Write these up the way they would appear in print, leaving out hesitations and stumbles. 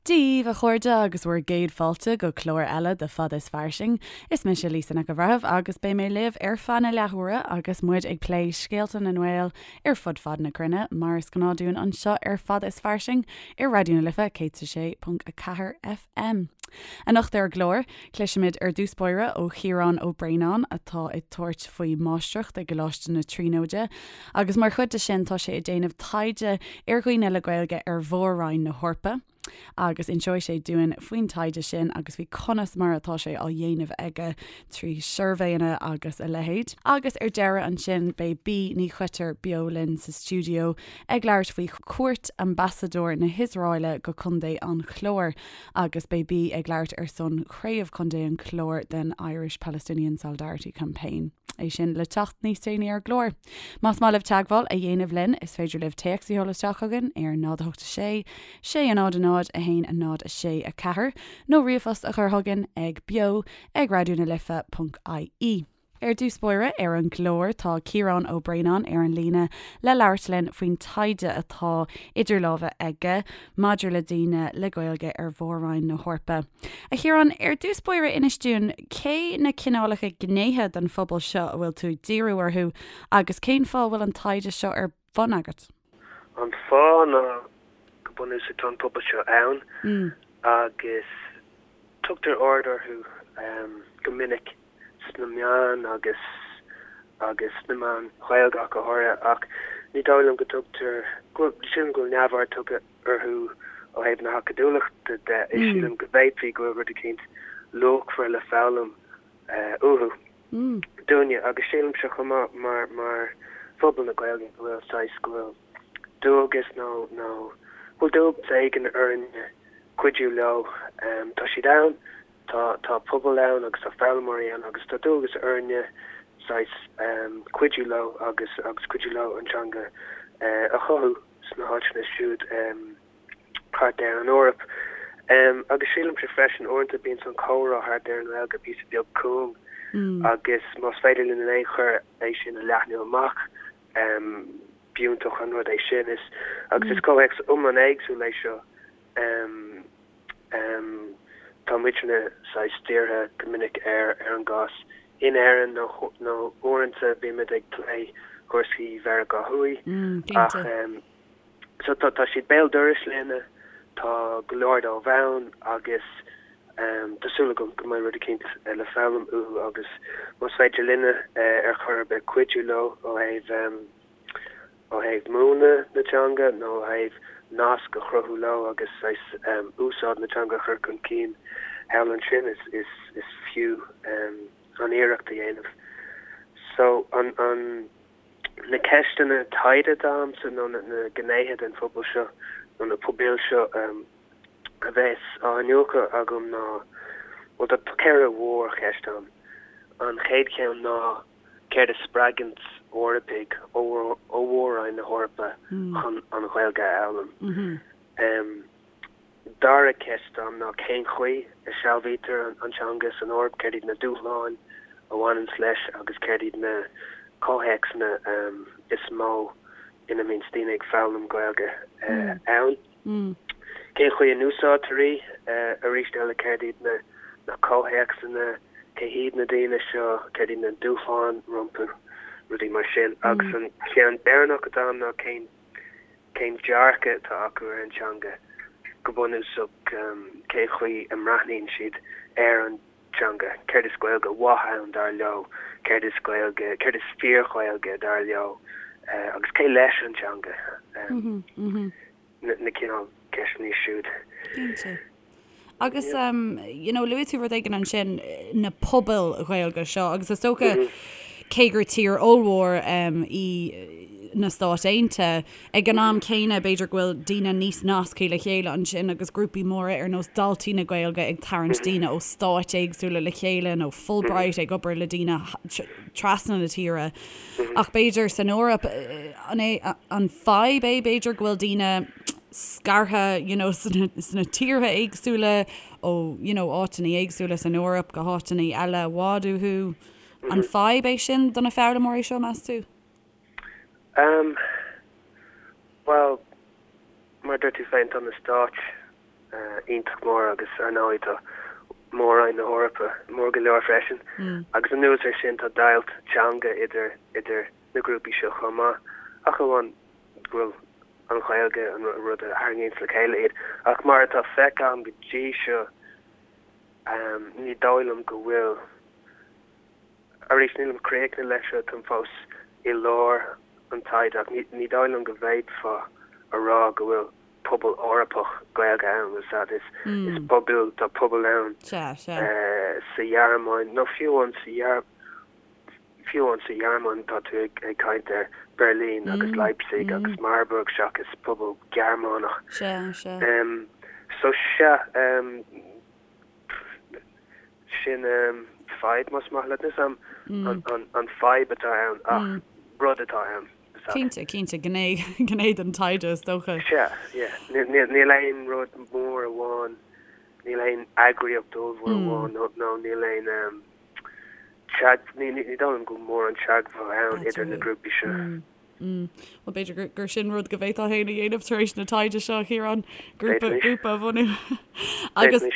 Dia daoibh, a chairde, agus bhur gcéad fáilte go clár eile de Fada is Fairsing. Is mise Lisa Nic an Bhreithimh agus beidh mé libh ar feadh na leathuaire agus muid ag plé scéalta na nGael ar fud fad na cruinne, mar is gnáth dúinn anseo ar Fada is Fairsing ar Raidió na Life 106.4 FM. Anocht ar an gclár, cloisfimid ar dtús báire ó Chiarán Ó Braonáin atá ag tabhairt faoi mháistreacht i gColáiste na Tríonóide agus mar chuid de sin tá sé ag déanamh taighde ar dhaoine le Gaeilge ar Mhór-Roinn na hEorpa agus inseoidh sé dúinn faoin taighde sin agus faoi conas mar atá sé á dhéanamh aige trí shuirbhéanna agus a leithéid. Agus ar deireadh ansin beidh Bee Ní Choitir beo linn sa stiúideo ag labhairt faoi chuairt Ambasadóir na hIosraeile go Contae an Chláir agus beidh Bee ag labhairt ar son Chraobh Chontae an Chláir den Irish Palestinian Solidarity Campaign. É sin le teacht níos déanaí ar an gclár. Más maith libh teagmháil a dhéanamh linn, is féidir libh téacs a sheoladh isteach chugainn ar 0 8 6 6 0 0 1 0 6 4 nó ríomhphost a chur chugainn ag beo ag raidionalife.ie. Ar dtús báire ar an gclár tá Ciarán Ó Braonáin ar an líne le labhairt linn faoin taighde atá idir lámha aige maidir le daoine le Gaeilge ar Mhór-Roinn na hEorpa. A Chiaráin, ar dtús báire inis dúinn cé na cineálacha gnéithe den phobal seo a bhfuil tú ag díriú orthu agus cén fáth a bhfuil an taighde seo ar bun agat? An fáth ná go bunúsach tá an pobal seo ann agus tugtar aird orthu go minic. sna meáin agus agus sna meáin Ghaeilge ach go háirithe, ach ní dóigh liom go dtugtar, go bhfuil, sílim go bhfuil neamhaird tugtha orthu ó thaobh na hacadúlachta de, is sílim go bhféadfaí go bhfuil rud eicínt luachmhar le foghlaim uathu, dúinne, agus sílimse chomh maith mar, mar phobal na Gaeilge go bhfuil saghas, go bhfuil dualgas nó, nó go bhfuil dualgas éigin orainne cuidiú leo, tá siad ann. Tá, tá pobal ann agus tá foghlaimeoirí ann agus tá dualgas orainne saghas cuidiú leo agus agus cuidiú leo an teanga a chothú sna háiteanna siúd thart ar an Eoraip. Agus sílimse freisin uaireanta bíonn an comhrá thart ar an nGaeilge píosa beag cúng agus más féidir linn in aon chor é sin a leathnú amach, b'iontach an rud é sin. Is agus is comhthéacs iomlán éagsúil é seo. Tá muidne saghas dírithe go minic ar ar an gcás in Éirinn nó nó uaireanta bímid ag plé cúrsaí Mheiriceá Thuaidh ach so tá tá siad béal dorais linne, tá go leor dóibh ann agus tá súil agam go mbeidh rud eicínt le foghlaim uathu agus más féidir linne ar chor ar bith cuidiú leo ó thaobh ó thaobh múineadh na teanga nó ó thaobh nasc a chruthú leo agus saghas úsáid na teanga a chur chun cinn thall ansin, is is fiú an iarracht a dhéanamh. So, an an na ceisteanna taighde atá agamsa nó na na gnéithe den phobal seo nó na pobail seo a bheas á iniúchadh agam ná, bhuel tá 4 mhórcheist ann. An chéad cheann ná Céard a spreagann Eorpaigh ó Mhór-Roinn na hEorpa chun an Ghaeilge a fhoghlaim? Dara ceist agam ná cén chaoi a sealbhaítear an teanga san Eoraip, céard iad na dúshláin a bhaineanns leis agus céard iad na comhthéacsanna is mó ina mbíonns daoine ag foghlaim Gaeilge ann? Cén chaoi a n-úsáidtear í? Arís eile, céard iad na comhthéacsanna, cé hiad na daoine seo, céard iad na dúshláin rompu, rudaí mar sin. Agus an ceann deireanach atá agam ná cén cén dearcadh atá acu ar an teanga, go bunúsach cén chaoi a mbreathnaíonn siad ar an teanga, céard is Gaeilge mhaith ann dar leo, céard is Gaeilge, céard is fíor-Ghaeilge dar leo agus cé leis an teanga, na cineál ceisteanna siúd. Cinnte. Agus you know luaigh tú rud éigin ansin, na pobail Ghaeilge seo agus is dócha cé gur tír ollmhór í na Stáit Aontaithe, Ag an am céanna, b'fhéidir go bhfuil daoine níos nasctha le chéile ansin agus grúpaí móra ar nós Daltaí na Gaeilge ag tarraingt daoine ó stáit éagsúla le chéile nó Fulbright ag obair le daoine trasna na tíre. Ach b'fhéidir san Eoraip, an é an fadhb é b'fhéidir go bhfuil daoine scartha you know sna tíortha éagsúla ó you know áiteanna éagsúla san Eoraip go háiteanna eile i bhfad uathu. An fadhb é sin do na foghlaimeoirí seo, meas tú? Em, bhuel, mar a dúirt tú féin, tá na stáit. iontach mór agus ar ndóigh tá Mór-Roinn na hEorpa mór go leor freisin. Agus anuas air sin tá deighilt teanga idir idir na grúpaí seo chomh maith, ach amháin go bhfuil an Ghaeilge an rud a tharraingíonns le chéile iad. Ach mar atá feicthe agam go dtí seo, ní dóigh liom go bhfuil, arís nílim críochnaithe leis seo, táim fós i lár an taighde, ach ní dóigh liom go bhféadfá a rá go bhfuil pobal Eorpach Gaeilge ann, is ea, is pobail, tá pobail ann sa Ghearmáin, nó fiú amháin sa fiú amháin sa Ghearmáin tá tú ag caint ar Berlin agus Leipzig agus Marburg seachas pobal Gearmánach. Sea, sea. So sea, sin fadhb más maith leat. Níl 's a'm an fadhb atá ann ach rud atá ann. Cinnte, cinnte, gné, gné den taighde is dócha. Sea, yeah. Níl aon rud mór amháin, níl aon eagraíocht ollmhór amháin nó níl aon ní dóigh liom go bhfuil mórán teagmháil ann idir na grúpaí seo. Bhuel, b'fhéidir gur sin rud go bhféadfá féin a dhéanamh tar éis na taighde seo, a Chiaráin, grúpa, grúpa a bhunú. Agus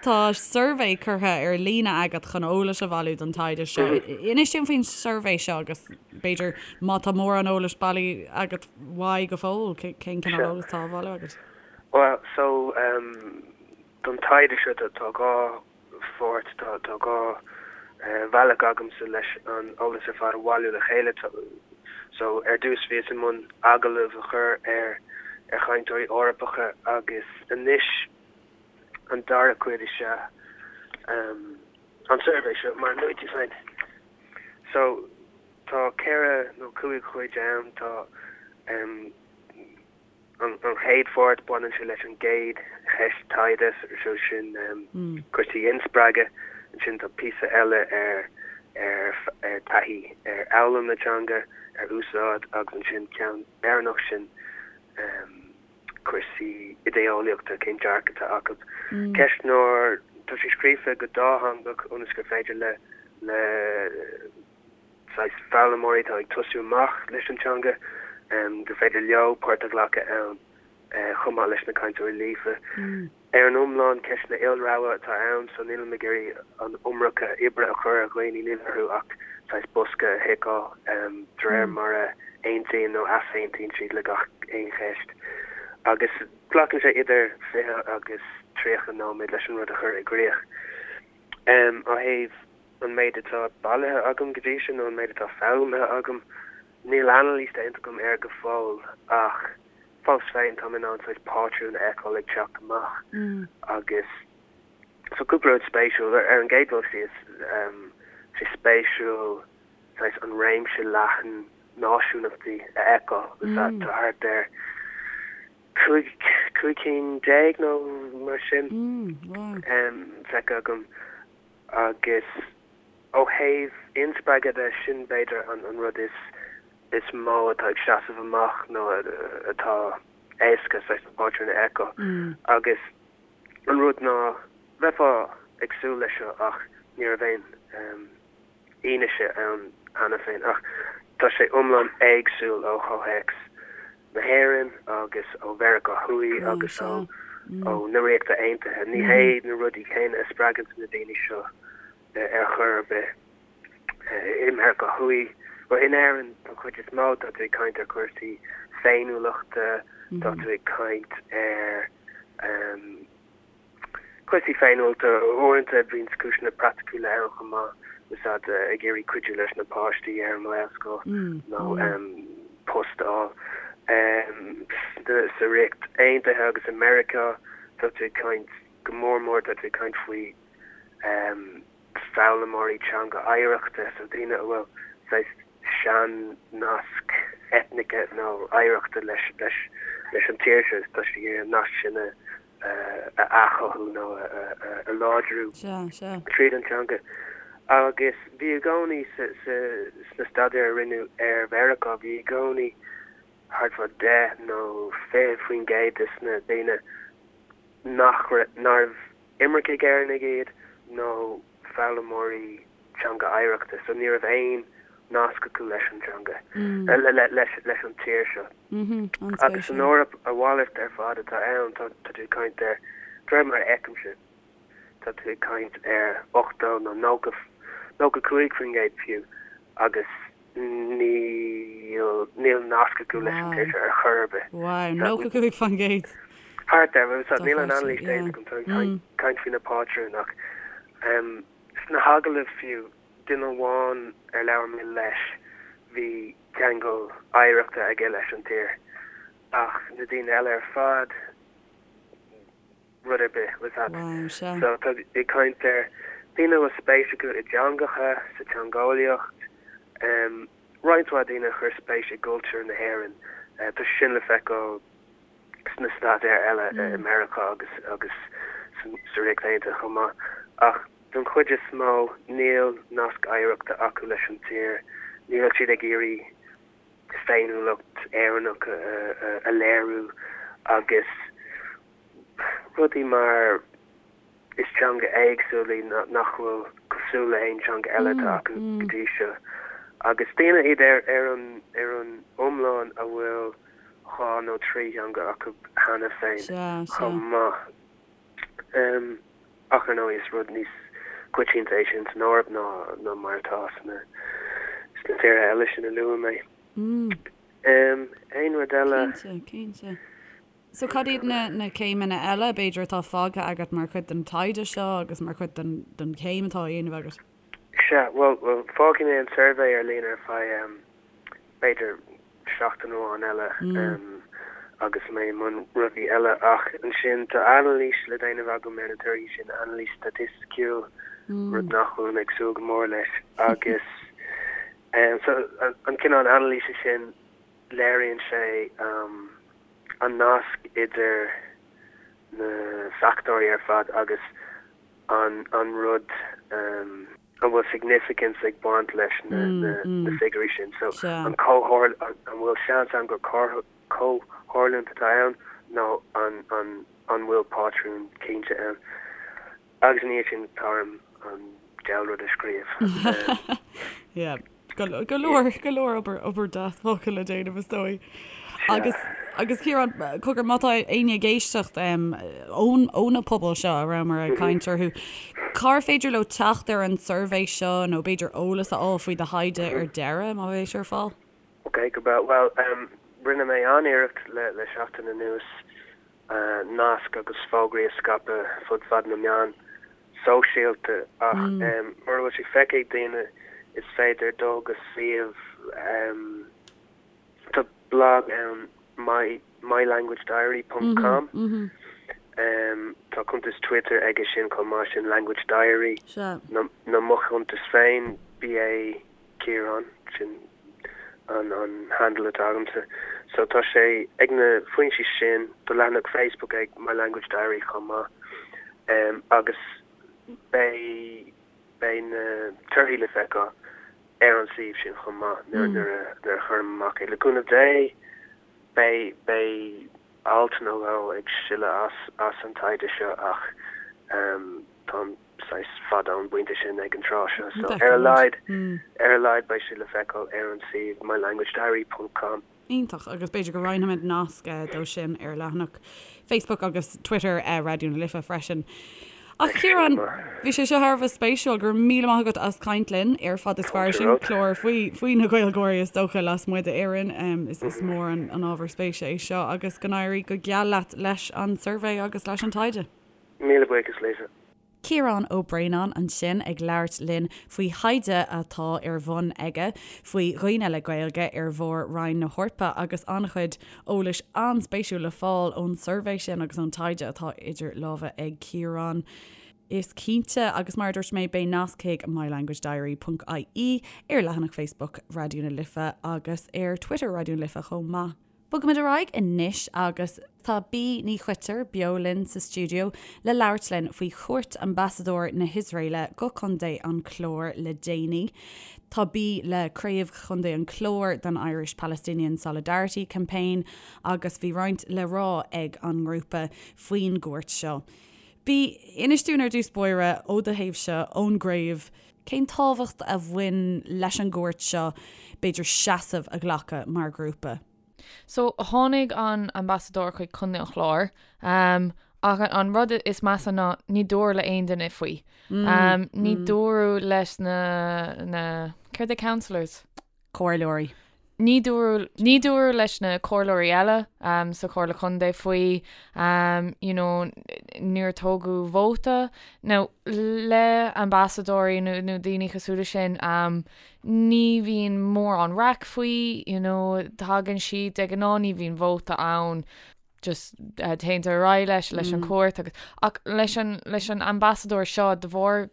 tá suirbhé curtha ar líne agat chun eolais a bhailiú don taighde seo. Inis dúinn faoin suirbhé seo agus b'fhéidir má tá mórán eolais bailithe agat uaidh go fóill, cén cineál eolais atá á bhailiú agat? Bhuel, so, don taighde seo tá 2 pháirt, tá 2 bhealach agamsa leis an eolas ar fad a bhailiú le chéile. So, ar dtús bhíos i mbun agallamh a chur ar ar chainteoirí Eorpacha agus anois an dara cuid is ea an suirbhé seo, mar a luaigh tú féin. So, tá 4 nó 5 chuid ann, tá. An chéad pháirt, baineann sé leis an gcéad cheist taighde, so sin cúrsaí inspreagadh. Ansin tá píosa eile ar ar taithí ar fhoghlaim na teanga, ar úsáid agus ansin ceann deireanach sin cúrsaí idé-eolaíochta, cén dearcadh atá acu. Ceistneoir, tá sé scríofa go dátheangach ionas gur féidir le le saghas foghlaimeoirí atá ag tosú amach leis an teanga, gur féidir leo páirt a ghlacadh ann chomh maith leis na cainteoirí líofa. Ar an iomlán, ceisteanna ilrogha atá ann, so nílim ag iarraidh an iomarca oibre a chur ar dhaoine, níl orthu ach saghas bosca a thiceáil de réir mar a aontaíonn nó easaontaíonn siad le gach aon cheist. Agus glacann sé idir 20 agus 30 nóiméad leis an rud a chur i gcrích. Ó thaobh an méid atá bailithe agam go dtí seo nó an méid atá foghlamtha agam, níl anailís déanta agam air go fóill ach fós féin táim in ann saghas pátrún a fheiceáil ag teacht amach agus so cúpla rud spéisiúil. Ar an gcéad dul síos, tá sé spéisiúil saghas an réimse leathan náisiúnachtaí a fheiceáil. Tá thart ar 15 cinn nó mar sin feicthe agam. Agus ó thaobh inspreagadh de, sin b'fhéidir an rud is is mó atá ag seasamh amach nó atá éasca saghas na pátrúin a fheiceáil. Agus an rud ná, bheifeá ag súil leis seo ach ní raibh aon fhianaise ann cheana féin, ach tá sé iomlán éagsúil ó chomhthéacs na hÉireann agus ó Mheiriceá Thuaidh agus ó na Ríochta Aontaithe. Ní hé na rudaí céanna a spreagann na daoine seo ar chor ar bith. I Meiriceá Thuaidh, bhuel in Éirinn don chuid is mó, tá tú ag caint ar chúrsaí féiniúlachta, tá tú ag caint ar. Cúrsaí féiniúlachta, uaireanta bíonn cúiseanna praiticiúla ann chomh maith, úsáid ag iarraidh cuidiú leis na páistí ar an nGaelscoil nó post a fháil. Sa Ríocht Aontaithe agus i Meiriceá tá tú ag caint, go mór mór tá tú ag caint faoi foghlaimeoirí teanga oidhreachta, so daoine a bhfuil saghas sean-nasc eitnice nó oidhreachta leis leis an tír seo, tá siad ag iarraidh an nasc sin a a athchothú nó a láidriú tríd an teanga. Agus bhí i gcónaí sna staidéir a rinneadh ar Mheiriceá, bhí i gcónaí thart fá 10 nó 20% de na daoine nach nárbh imircigh Éireannaigh iad nó foghlaimeoirí teanga oidhreachta, so ní raibh aon nasc acu leis an teanga, leis an tír seo. Agus san Eoraip a mhalairt ar fad atá ann, tá tú ag caint ar De réir mar a fheicimse, tá tú ag caint ar 80 nó 90, 95% fiú agus níl, níl nasc acu leis an tír seo ar chor ar bith. Wow, 95%! Thart air, níl an anailís déanta agam, táim ag caint faoi na pátrúin ach sna hagallaimh fiú, duine amháin ar labhair mé leis, bhí ceangal oidhreachta aige leis an tír ach na daoine eile ar fad, rud ar bith, bhfuil a fhios agat. So tá ag caint ar daoine a bhfuil spéis acu i dteangacha, sa teangeolaíocht, roinnt mhaith daoine a chuir spéis i gcultúr na hÉireann. Tá sé sin le feiceáil sna staidéir eile i Meiriceá agus agus sa Ríocht Aontaithe chomh maith. Ach don chuid is mó níl nasc oidhreachta acu leis an tír, níl siad ag iarraidh féiniúlacht Éireannach a léiriú agus rudaí mar is teanga éagsúil í nach bhfuil cosúil le haon teanga eile atá acu go dtí seo. Agus daoine iad ar ar an ar an iomlán a bhfuil dhá nó trí theanga acu cheana féin chomh maith. Ach ar ndóigh is rud níos coitianta é sin san Eoraip ná ná mar atá sna sna tíortha eile sin a luaigh mé. Aon rud eile? Cinnte, cinnte. So cad iad na na céimeanna eile b'fhéidir atá fágtha agat mar chuid den taighde seo agus mar chuid den den chéim atá á dhéanamh agat? Sea, bhuel, bhuel, fágfaidh mé an suirbhé ar líne ar feadh b'fhéidir seachtain amháin eile agus mé i mbun rudaí eile ach ansin tá anailís le déanamh agam ar na torthaí sin, anailís staitisticiúil, rud nach bhfuilim ag súil go mór leis agus so an cineál anailíse sin léiríonn sé an nasc idir na fachtóirí ar fad agus an an rud an bhfuil significance ag baint leis na na figiúirí sin. So an comhthar an bhfuil seans ann gur comhtharlúint atá ann nó an an an bhfuil pátrún cinnte ann. Agus ina dhiaidh sin tá orm an diabhal rud a scríobh. Yeah. Go leor, go leor obair, obair deas fágtha le déanamh is dóigh. Agus, agus Ciarán, cogar, má tá éinne ag éisteacht ón, ó na pobail seo a rabhamar ag caint orthu, cár féidir leo teacht ar an suirbhé seo nó b'fhéidir eolas a fháil faoi do thaighde ar deireadh, má bheidh sé ar fáil? Ok, go breá. Bhuel, rinne mé an-iarracht le, le seachtain anuas nasc agus fógraí a scaipeadh fud fad na meán sóisialta ach mura bhfuil sé feicthe ag daoine is féidir dul go suíomh tá blag ann my mylanguagediary ponc com tá cuntas Twitter aige sin chomh maith sin language diary nó mo chuntas féin BA Ciarán sin an an handle atá agamsa. So tá sé ag na foinsí sin, tá leathanach Facebook ag My Language Diary chomh maith. Um, agus beidh beidh na torthaí le feiceáil ar an suíomh sin chomh maith nuair mm. nuair a nuair a chuirim amach é. Le cúnamh Dé beidh beidh alt nó dhó ag sileadh as as an taighde seo ach um, táim saghas fada ón bpointe sin ag an tráth seo so ar a laghad ar a laghad beidh sé le feiceáil ar an suíomh mylanguagediary ponc com. Iontach, agus b'fhéidir go roinnfimid nasc dó sin ar leathanach Facebook agus Twitter Raidió na Life freisin. Ach Ciarán, bhí sé seo thar a bheith spéisiúil, go raibh míle maith agat as caint linn ar Fad is Fairsing, clár faoi faoi na Gaeilgeoirí is dócha lasmuigh d'Éirinn. Is is mór an an ábhar spéise é seo agus go n-éirí go geal leat leis an suirbhé agus leis an taighde. Míle buíochas, Lisa. Ciarán Ó Braonáin ansin ag labhairt linn faoi thaighde atá ar bhun aige faoi dhaoine le Gaeilge ar Mhór-Roinn na hEorpa agus an-chuid eolais an-spéisiúil le fáil ón suirbhé sin agus ón taighde atá idir lámha ag Ciarán. Is cinnte, agus mar a dúirt mé, beidh nasc chuig mylanguagediary ponc ie ar leathanach Facebook Raidió na Life agus ar Twitter Raidió na Life chomh maith. Bogaimid ar aghaidh anois agus tá Bee Ní Choitir beo linn sa stiúideo le labhairt linn faoi chuairt Ambasadóir na hIosraeile go Contae an Chláir le déanaí. Tá Bee le Craobh Chontae an Chláir den Irish Palestinian Solidarity Campaign agus bhí roinnt le rá ag an ngrúpa faoin gcuairt seo. Bee, inis dúinn ar dtús báire, ó do thaobhse, ón gcraobh, Cén tábhacht a bhain leis an gcuairt seo, b'fhéidir seasamh a ghlacadh mar ghrúpa? So, tháinig an Ambasadóir chuig Contae an Chláir um, Ach an rud is measa ná ní dúradh le aon duine faoi. Ní dúradh leis na, na, céard é councillors? Comhairleoirí. Ní dúradh, ní dúradh leis na comhairleoirí eile sa Chomhairle Contae faoi, you know, níor tógadh vóta. Now, le ambasadóirí nó, nó daoine cosúil leis sin, ní bhíonn mórán raic faoi, you know, tagann siad, de ghnáth ní bhíonn vóta ann. just téann ar aghaidh leis leis an cuairt agus ach leis an leis an ambasadóir seo de bharr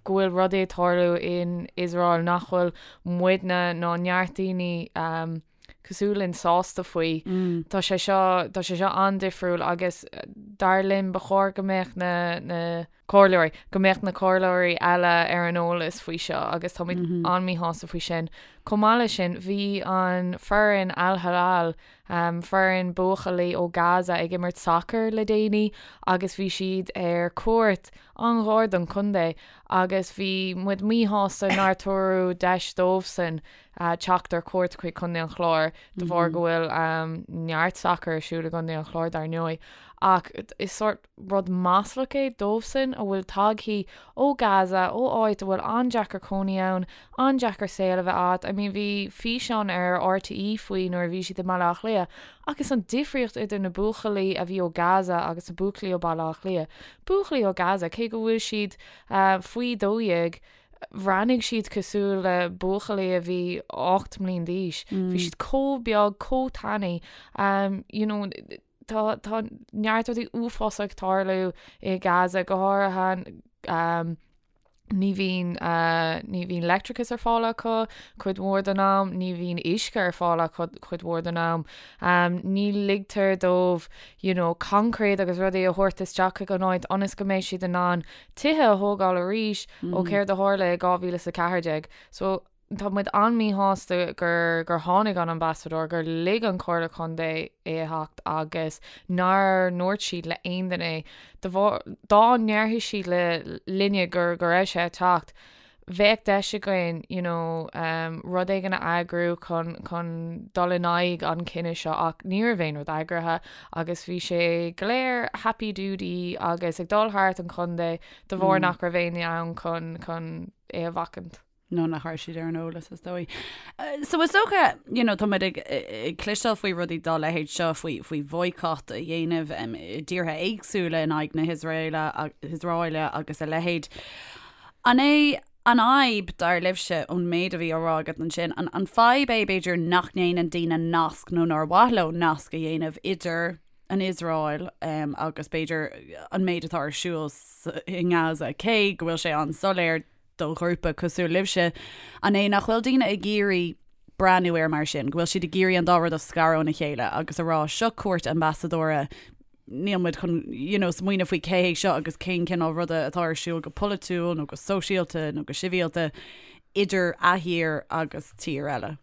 go bhfuil rudaí ag tarlú in Iosrael nach bhfuil muidne ná neart daoine um, cosúil linn sásta faoi. Mm. Tá sé seo tá sé seo an-difriúil agus dar linn ba chóir go mbeadh na, na comhairleoirí, go mbeadh na comhairleoirí eile ar an eolas faoi seo agus táimid an-míshásta faoi sin. Chomh maith leis sin, bhí an foireann Al Hilal, foireann buachaillí ó Gaza ag imirt sacair le déanaí agus bhí siad ar cuairt an-ghar don chontae agus bhí muid míshásta nár tabhaireadh deis dóibhsan teacht ar cuairt chuig Contae an Chláir de bharr go bhfuil neart sacair ar siúl i gContae an Chláir dar ndóigh. Ach is sórt rud maslach é dóibhsan a bhfuil tagthaí ó Gaza, ó áit a bhfuil an-deacair cónaí ann, an-deacair saol a bheith agat. I mean bhí físeán ar RTÉ faoi nuair a bhí siad i mBaile Átha Cliath agus an difríocht idir na buachaillí a bhí ó Gaza agus na buachaillí ó Baile Átha Cliath. Buachaillí ó Gaza, cé go bhfuil siad faoi 12, bhreathnaigh siad cosúil le buachaillí a bhí 8 mbliain d'aois. Bhí siad chomh beag, chomh tanaí, you know, Tá tá neart rudaí uafásacha ag tarlú i Gaza, go háirithe ní bhíonn ní bhíonn leictreachas ar fáil acu cuid mhór den am, ní bhíonn uisce ar fáil acu cuid mhór den am. Ní ligtear dóibh you know coincréit agus rudaí a thabhairt isteach chuig an áit ionas go mbeidh siad in ann tithe a thógáil arís ó céard a tharla i 2014. So Tá muid an-míshásta gur gur tháinig an ambasadóir, gur lig an Chomhairle Contae é a theacht agus nár ndúirt siad le aon duine é. De bharr, dá ndéarfadh siad le linne gur go raibh sé ag teacht, bheadh deis againn you know rud éigin a eagrú chun chun dul in aghaidh an chinnidh seo ach ní raibh aon rud eagraithe agus bhí sé go léir happy doody agus ag dul thart an chontae de bharr nach raibh éinne ann chun chun é a bhacaint. nó nach raibh siad ar an eolas is dóigh. So is dócha, you know, tá muid ag, ag cloisteáil faoi rudaí dá leithéid seo, faoi, faoi bhoycott a dhéanamh um, i dtíortha éagsúla in aghaidh na hIosraeile, hIosraeile agus a leithéid. An é an fhadhb, dar libhse, ón méid a bhí á rá agat ansin, an, an fadhb é b'fhéidir nach ndéanann daoine nasc nó nár mhaith leo nasc a dhéanamh idir an Iosrael um, agus b'fhéidir an méid atá ar siúl i nGaza, cé go bhfuil sé an-soiléir do ghrúpa cosúil libhse, an é nach bhfuil daoine ag iarraidh breathnú air mar sin, go bhfuil siad ag iarraidh an dá rud a scaradh óna chéile agus a rá seo cuairt ambasadóra, níl muid chun you know, smaoineamh faoi cé hé seo agus cén cineál ruda atá ar siúl go polaitiúil nó go sóisialta nó go sibhialta idir a thír agus tír eile.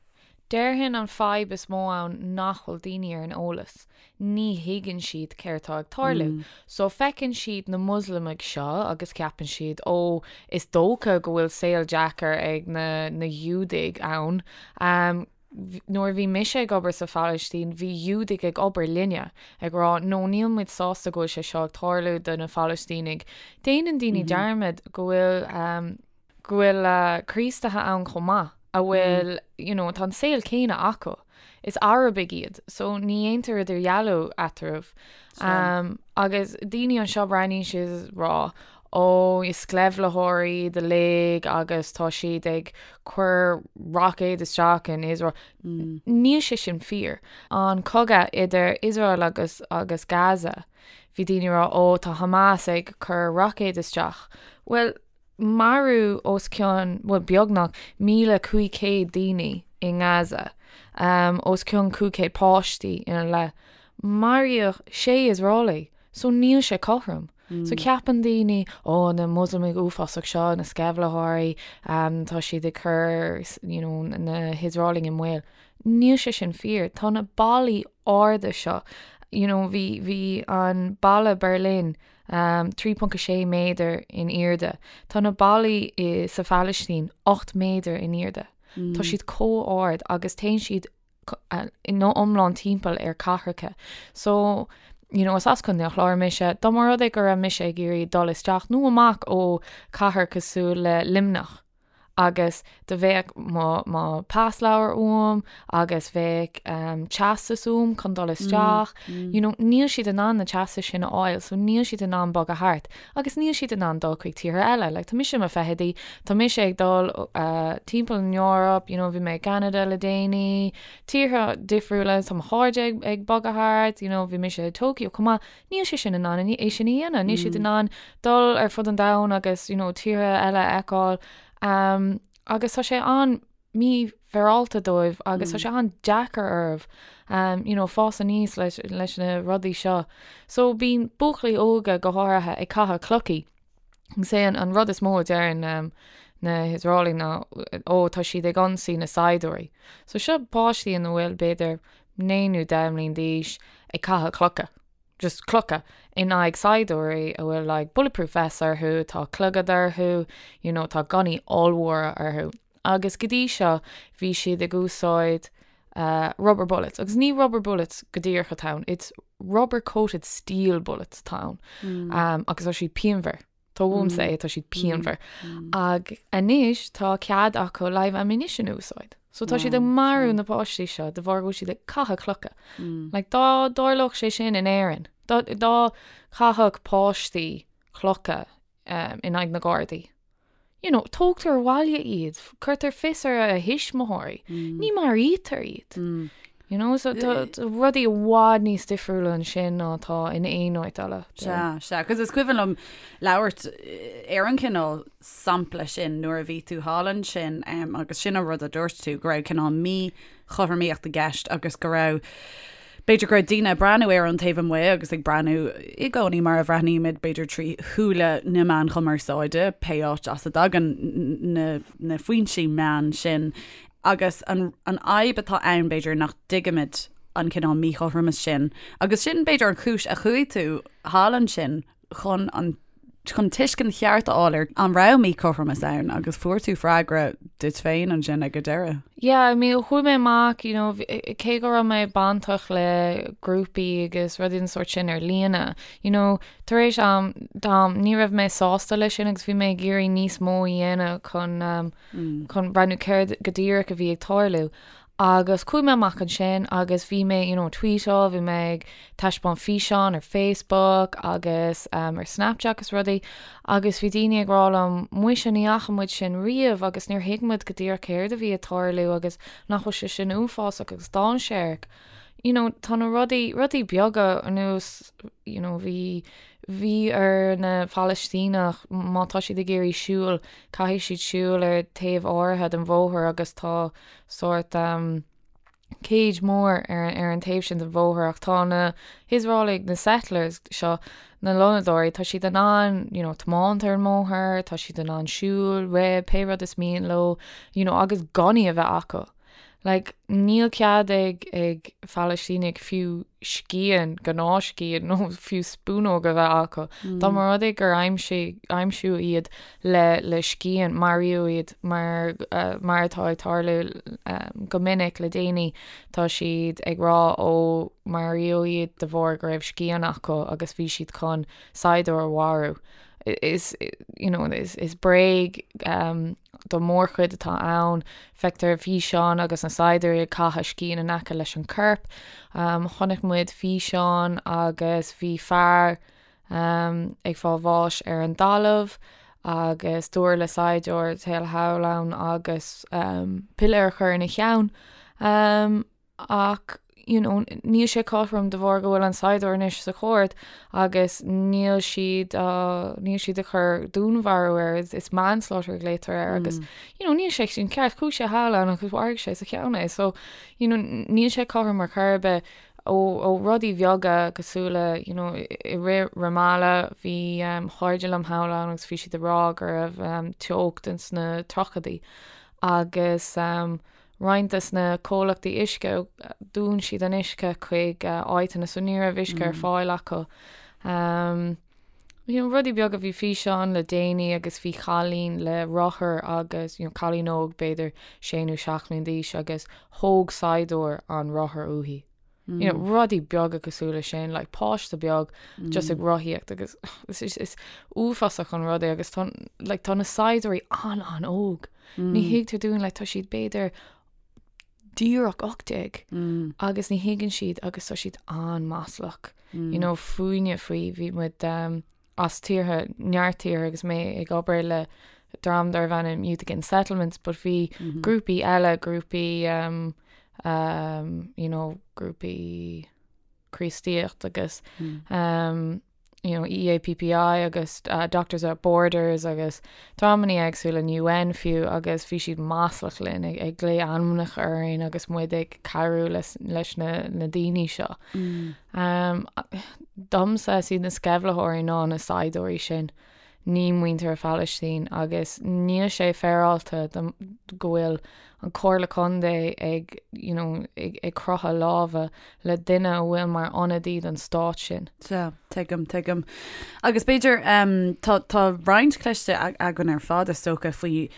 Déarfainn an fadhb is mó ann nach bhfuil daoine ar an eolas. Ní thuigeann siad céard tá ag tarlú. So feiceann siad na Muslamaigh seo agus ceapann siad ó is dócha go bhfuil saol deacair ag na na Giúdaigh ann. Nuair a bhí mise ag obair sa Phalaistín bhí Giúdaigh ag obair linne ag rá no níl muid sásta go bhfuil sé seo ag tarlú do na Phalaistínigh. Déanann daoine dearmad go bhfuil go bhfuil Críostaithe ann chomh maith a bhfuil, you know, tá an saol céanna acu. Is Arabaigh iad, so ní dhéantar idirdhealú eatarthu. Um, agus daoine anseo breathnaíonn siad is rá, ó, is sceimhlitheoirí iad uilig agus tá siad ag cur roicéid isteach in Iosrael. Níl sé sin fíor. An cogadh idir Iosrael agus, agus Gaza, bhí daoine ag rá, ó, tá Hamas ag cur roicéid isteach. Bhuel, Maraíodh os cionn, bhuel, beagnach, 1,500 daoine i nGaza, os cionn 500 páistí ina leith. Maraíodh sé Iosraelaigh, so níl sé cothrom. So ceapann daoine, ó, na Muslamaigh uafásach seo, na sceimhlitheoirí, tá siad ag cur, you know, na hIosraelaigh i mbaol. Níl sé sin fíor. Tá na ballaí arda seo, you know, bhí, bhí an balla Berlin, 3.6 méadar in airde. Tá na ballaí sa Phalaistín 8 méadar in airde. Tá siad chomh ard agus téann siad ina iomlán timpeall ar cathracha. So. You know, is as Contae an Chláir mise, dá mba rud é go raibh mise ag iarraidh dul isteach nó amach ó cathair cosúil le Luimneach agus do bheadh mo, mo pasleabhar uaim agus bheadh um, teastas uaim chun dul isteach. You know, níl siad in ann na teastais sin a fháil, so níl siad in ann bogadh thart agus níl siad in ann dul chuig tíortha eile. Like, tá mise i mo fichidí, tá mise ag dul uh, timpeall an Eoraip, you know, bhí mé i gCanada le déanaí, tíortha difriúla, tá mo chairde ag, ag bogadh thart, you know, bhí mise i Tokyo chomh maith, níl sé sin in ann é sin a dhéanamh, níl siad in ann dul ar fud an domhain agus, you know, tíortha eile a fheiceáil, um, agus tá sé an-mhífhéaráilte dóibh agus tá sé an-deacair orthu, um, you know, fás aníos leis, leis na rudaí seo. So bíonn buachaillí óga go háirithe ag caitheamh clochaí. Is é an rud is mó a deireann na hIosraelaigh ná ó tá siad ag ionsaí na saighdiúirí. So seo páistí ina bhfuil b'fhéidir 9 nó 10 mbliain d'aois ag caitheamh clocha, just clocha, in aghaidh saighdiúirí a bhfuil like bulletproof vests orthu, tá clogad orthu, you know, tá gunnaí ollmhóra orthu. Agus go dtí seo bhí siad ag úsáid rubber bullets, agus ní rubber bullets go díreach atá ann, it's rubber coated steel bullets atá ann, agus tá siad pianmhar. Tá uaimse é, tá siad pianmhar. Ach anois tá cead acu live ammunition a úsáid. So tá siad ag marú na páistí seo de bharr go bhfuil siad ag caitheamh clocha. Like dá dtarlódh sé sin in Éirinn, dá dá chaithfeadh páistí clocha in aghaidh na Gardaí. You know, tógtar abhaile iad, cuirtear fios ar a thuismitheoirí, ní maraítear iad. You know, so tá rudaí i bhfad níos difriúla ansin ná atá in aon áit eile. Sea, sea, agus is cuimhin liom labhairt ar an chineál sampla sin nuair a bhí tú thall ansin agus sin an rud a dúirt tú, go raibh cineál míchothromaíocht i gceist agus go raibh B'fhéidir go raibh daoine ag breathnú air ón taobh amuigh agus ag breathnú i gcónaí mar a bhreathnaímid, b'fhéidir trí shúile na meán chumarsáide, pé áit as a dtagann na, na foinsí meán sin. Agus an, an fhadhb atá ann, b'fhéidir, nach dtuigimid an cineál míchothromas sin. Agus sin, b'fhéidir, an chúis a chuaigh tú thall ansin chun an chun tuiscint cheart a fháil ar an raibh míchothromas ann agus fuair tú freagra duit féin ansin ag an deireadh. Yeah, I mean, chuaigh mé amach, you know, cé go raibh mé bainteach le grúpaí agus rudaí den sórt sin ar líne, you know, tar éis am, d'am, ní raibh mé sásta leis sin agus bhí mé ag iarraidh níos mó a dhéanamh chun, um, chun breathnú céard go díreach a bhí ag tarlú. Agus chuaigh mé amach ansin agus bhí mé, you know, tweetáil, bhí mé ag taispeáint físeán ar Facebook agus um, ar Snapchat agus rudaí agus bhí daoine ag rá liom, muise ní fhaca muid sin riamh agus níor thuig muid go díreach céard a bhí ag tarlú agus nach bhfuil sé sin uafásach agus dainséarach. You know, tá na rudaí, rudaí beaga ar nós, you know, bhí, bhí ar na Palaistíneach má tá siad ag iarraidh siúl, caithfidh siad siúl ar taobh áirithe den bhóthar agus tá sórt cage mór ar ar an taobh sin den bhóthar ach tá na hIosraelaigh, na settlers seo, na lonnadóirí, tá siad in ann you know tiomáint ar an mbóthar, tá siad in ann siúl, rith, pé rud is mian leo you know agus gunnaí a bheith acu. Like níl cead ag ag Palaistínigh fiú scian, gnáthscian nó fiú spúnóg a bheith acu. Dá mba rud é gur aimsigh aimsíodh iad le le scian, maraíodh iad mar mar atá ag tarlú go minic le déanaí, tá siad ag rá ó maraíodh iad de bharr go raibh scian acu agus bhí siad chun saighdiúir a mharú. Is you know is is bréag don mhórchuid atá ann. Feictear físeán agus na saighdiúirí ag caitheamh scian in aice leis an corp. Chonaic muid físeán agus bhí fear ag fáil bháis ar an dtalamh agus dúradh le saighdiúir téigh thall ann agus piléar a chur ina cheann. Ach you know níl sé cothrom de bharr go bhfuil an saighdiúir anois sa chúirt agus níl siad níl siad ag cur dúnmharú air, is manslaughter a ghlaotar air agus you know níl sé sin ceart, chuaigh sé thall ann agus mharaigh sé sa cheann é so you know níl sé cothrom ar chor ar bith. Ó ó rudaí bheaga cosúil le you know i rith Ramallah bhí cairde liom thall ann agus bhí siad ag rá go raibh teocht ins na tríochaidí agus roinnt des na comhlachtaí uisce dún siad an uisce chuig áiteanna so ní raibh uisce ar fáil acu. You know, rudaí beaga bhí físeán le déanaí agus bhí cailín le rothar agus you know, cailín óg b'fhéidir sé nó seacht mbliana d'aois agus thóg saighdiúir an rothar uaithi. You know, rudaí beaga cosúil le sin, like páiste beag just ag rothaíocht agus is, is, is uafásach an rud é agus tá, like, tá na saighdiúirí an-an-óg. Ní thuigtear dúinn, like, tá siad b'fhéidir díreach 18 agus ní thuigeann siad agus tá siad an-maslach. You know, fúinne faoi, bhí muid um, as tíortha, neart tíortha agus mé ag obair le dream darbh ainm Youth Against Settlements, but bhí grúpaí eile, grúpaí um, um, you know, grúpaí Críostaíocht agus um, you know, EAPPI agus uh, Doctors Without Borders agus dreamanna éagsúla an UN fiú agus bhí siad maslach linn ag, ag glaoch ainmneacha orainn agus muid ag cabhrú leis, leis na, na daoine seo. Mm. Um, domsa is iad na sceimhlitheoirí ná na saighdiúirí sin, ní muintir Phalaistín agus níl sé féaráilte go bhfuil an Comhairle Contae ag, you know, ag, ag croitheadh lámha le duine a bhfuil mar ionadaí don stát sin. Sea, tuigim, tuigim. Agus b'fhéidir, um, tá, tá roinnt cloiste againn ar fad is dócha faoi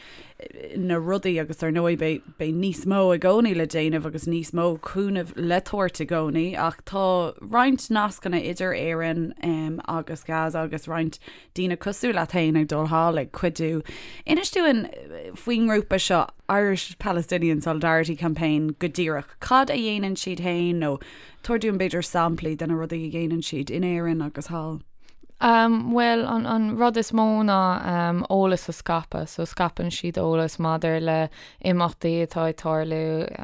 na rudaí agus ar ndóigh beidh, beidh níos mó i gcónaí le déanamh agus níos mó cúnamh le tabhairt i gcónaí ach tá roinnt nascanna idir Éirinn um, agus Gaza agus roinnt daoine cosúil leat féin ag dul thall ag cuidiú. Inis dúinn faoin ngrúpa seo Irish Palestinian Solidarity Campaign go díreach. Cad a dhéanann siad féin nó tabhair dúinn b'fhéidir samplaí de na rudaí a dhéanann siad in Éirinn agus thall. Um, bhuel, an, an rud is mó ná um, eolas a scaipeadh, so scaipeann siad eolas maidir le imeachtaí atá ag tarlú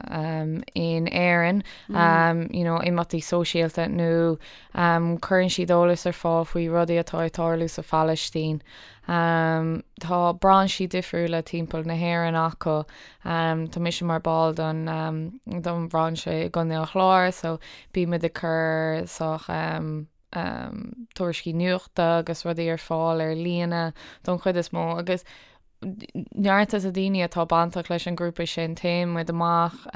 um, in Éirinn, mm. um, you know, imeachtaí sóisialta nó um, cuireann siad eolas ar fáil faoi rudaí atá ag tarlú sa Phalaistín. Um, tá brainsí difriúla timpeall na hÉireann acu. Um, tá mise mar ball don, um, don bhrainse i gContae an Chláir, so bímid ag cur sách um, tuairiscí nuachta agus rudaí ar fáil ar líne don chuid is mó agus neart de na daoine atá bainteach leis an grúpa sin téann muid amach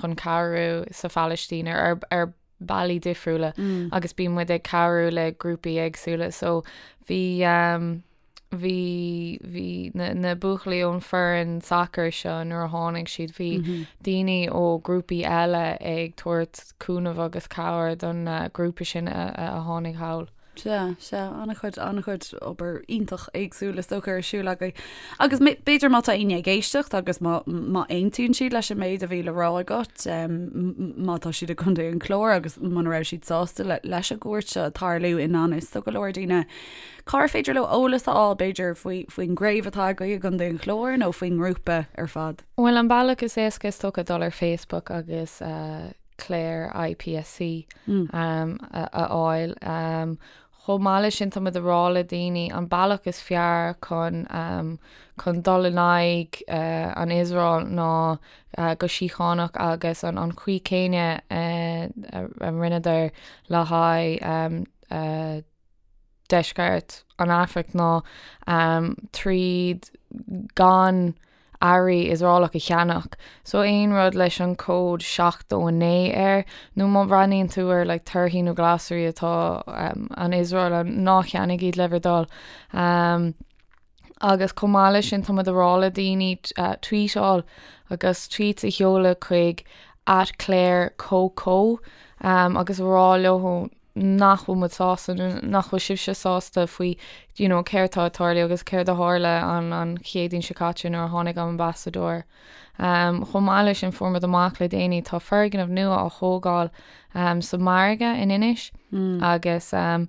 chun cabhrú sa Phalaistín ar ar bealaí difriúla agus bíonn muid ag cabhrú le grúpaí éagsúla so bhí bhí, bhí na, na buachaillí ón foireann sacair seo nuair a tháinig siad, bhí daoine ó grúpaí eile ag tabhairt cúnamh agus cabhair don grúpa sin a, a tháinig thall. Sea, sea, an-chuid, an-chuid obair iontach éagsúil is dócha ar siúl agaibh. Agus b'fhéidir má tá éinne ag éisteacht agus má, má aontaíonn siad leis an méid a bhí le rá agat, má tá siad i gContae an Chláir agus muna raibh siad sásta le, leis an gcuairt seo ag tarlú i ngan fhios do go leor daoine, Cár féidir leo eolas a fháil, b'fhéidir, faoi, faoin gcraobh atá agaibh i gContae an Chláir nó faoin ngrúpa ar fad? Bhuel, an bealach is éasca is dócha dul ar Facebook agus Clare IPSC a fháil. Chomh maith leis sin, tá muid ag rá le daoine an bealach is fearr chun chun dul in aghaidh an Iosrael ná go síochánach agus an an chaoi céanna a rinneadar le haghaidh deisceart an Afraic ná tríd gan earraí Iosraelach a cheannach. So aon rud leis an cód 79 air, nó má bhreathnaíonn tú ar like torthaí nó glasraí atá an Iosrael, ná ceannaigh iad le bhur dtoil. Agus chomh maith leis sin tá muid ag rá le daoine tweetáil agus tweets a sheoladh chuig at Clare CoCo agus a rá leo nach bhfuil muid sásta nó nach bhfuil sibhse sásta faoi you know céard tá ag tarlú agus céard a tharla an an Chéadaoin seo caite nuair a tháinig an ambasadóir. Um, chomh maith leis sin fuair muid amach le déanaí tá foirgneamh nua á thógáil um, sa margadh in Inis mm. agus um,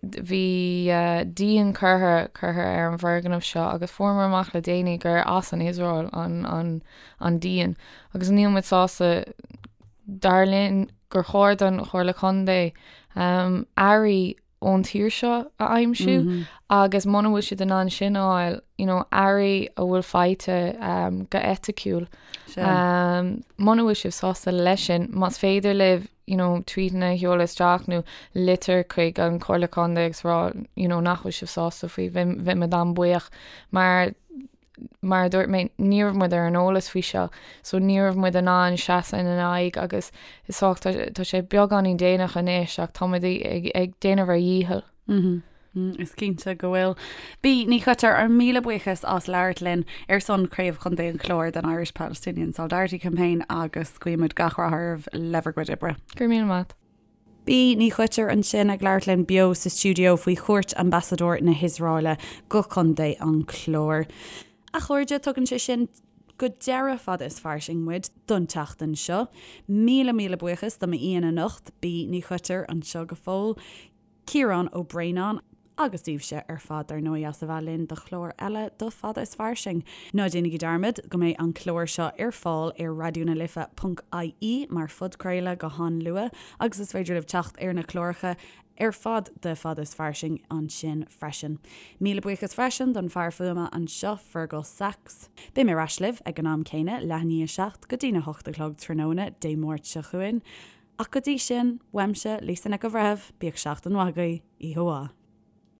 bhí uh, díon curtha curtha ar an bhfoirgneamh seo agus fuair amach le déanaí gur as an Iosrael an, an, an díon agus níl muid sásta Dar linn gur chóir don Chomhairle Contae earraí ón tír seo a aimsiú agus muna bhfuil siad in ann sin a fháil, you know, earraí a bhfuil faighte go eiticiúil. Muna bhfuil sibh sásta leis sin, más féidir libh, you know, tweetanna a sheoladh isteach nó litir chuig an Chomhairle Contae agus rá, you know, nach bhfuil sibh sásta faoi, bheadh muid an-bhuíoch mar mar a dúirt mé, ní raibh muid ar an eolas faoi seo, so ní raibh muid in ann seasamh ina n-aghaidh agus is dócha tá sé beagáinín déanach anois ach tá muid ag déanamh ár ndícheall. Is cinnte go bhfuil. Bea Ní Choitir, ár míle buíochas as labhairt linn ar son Chraobh Chontae an Chláir den Irish Palestinian Solidarity Campaign agus guímid gach rath oraibh le bhur gcuid oibre. Go raibh míle maith. Bea Ní Choitir ansin ag labhairt linn beo sa stiúideo faoi chuairt Ambasadóir na hIosraeile go Contae an Chláir. A chairde, tugann sé sin go deireadh Fada is Fairsing muid don tseachtain seo. Míle míle buíochas do m'aíonna anocht, Bea Ní Choitir anseo go fóill, Ciarán Ó Braonáin, agus daoibhse ar fad dar ndóigh as a bheith linn do chlár eile de Fada is Fairsing. Ná déanaigí dearmad go mbeidh an clár seo ar fáil ar raidionalife ponc ie mar phodchraoladh go han-luath agus is féidir libh teacht ar na cláracha ar fad de Fada is Fairsing ansin freisin. Míle buíochas freisin don fear fuaime anseo, Fergal Sachs. Beidh mé ar ais libh ag an am céanna, leath i ndiaidh a 7 go dtína 8 a chlog tráthnóna Dé Máirt seo chugainn. Ach go dtí sin, uaimse, Lisa Nic an Bhreithimh, bíodh seachtain mhaith agaibh, oíche mhaith.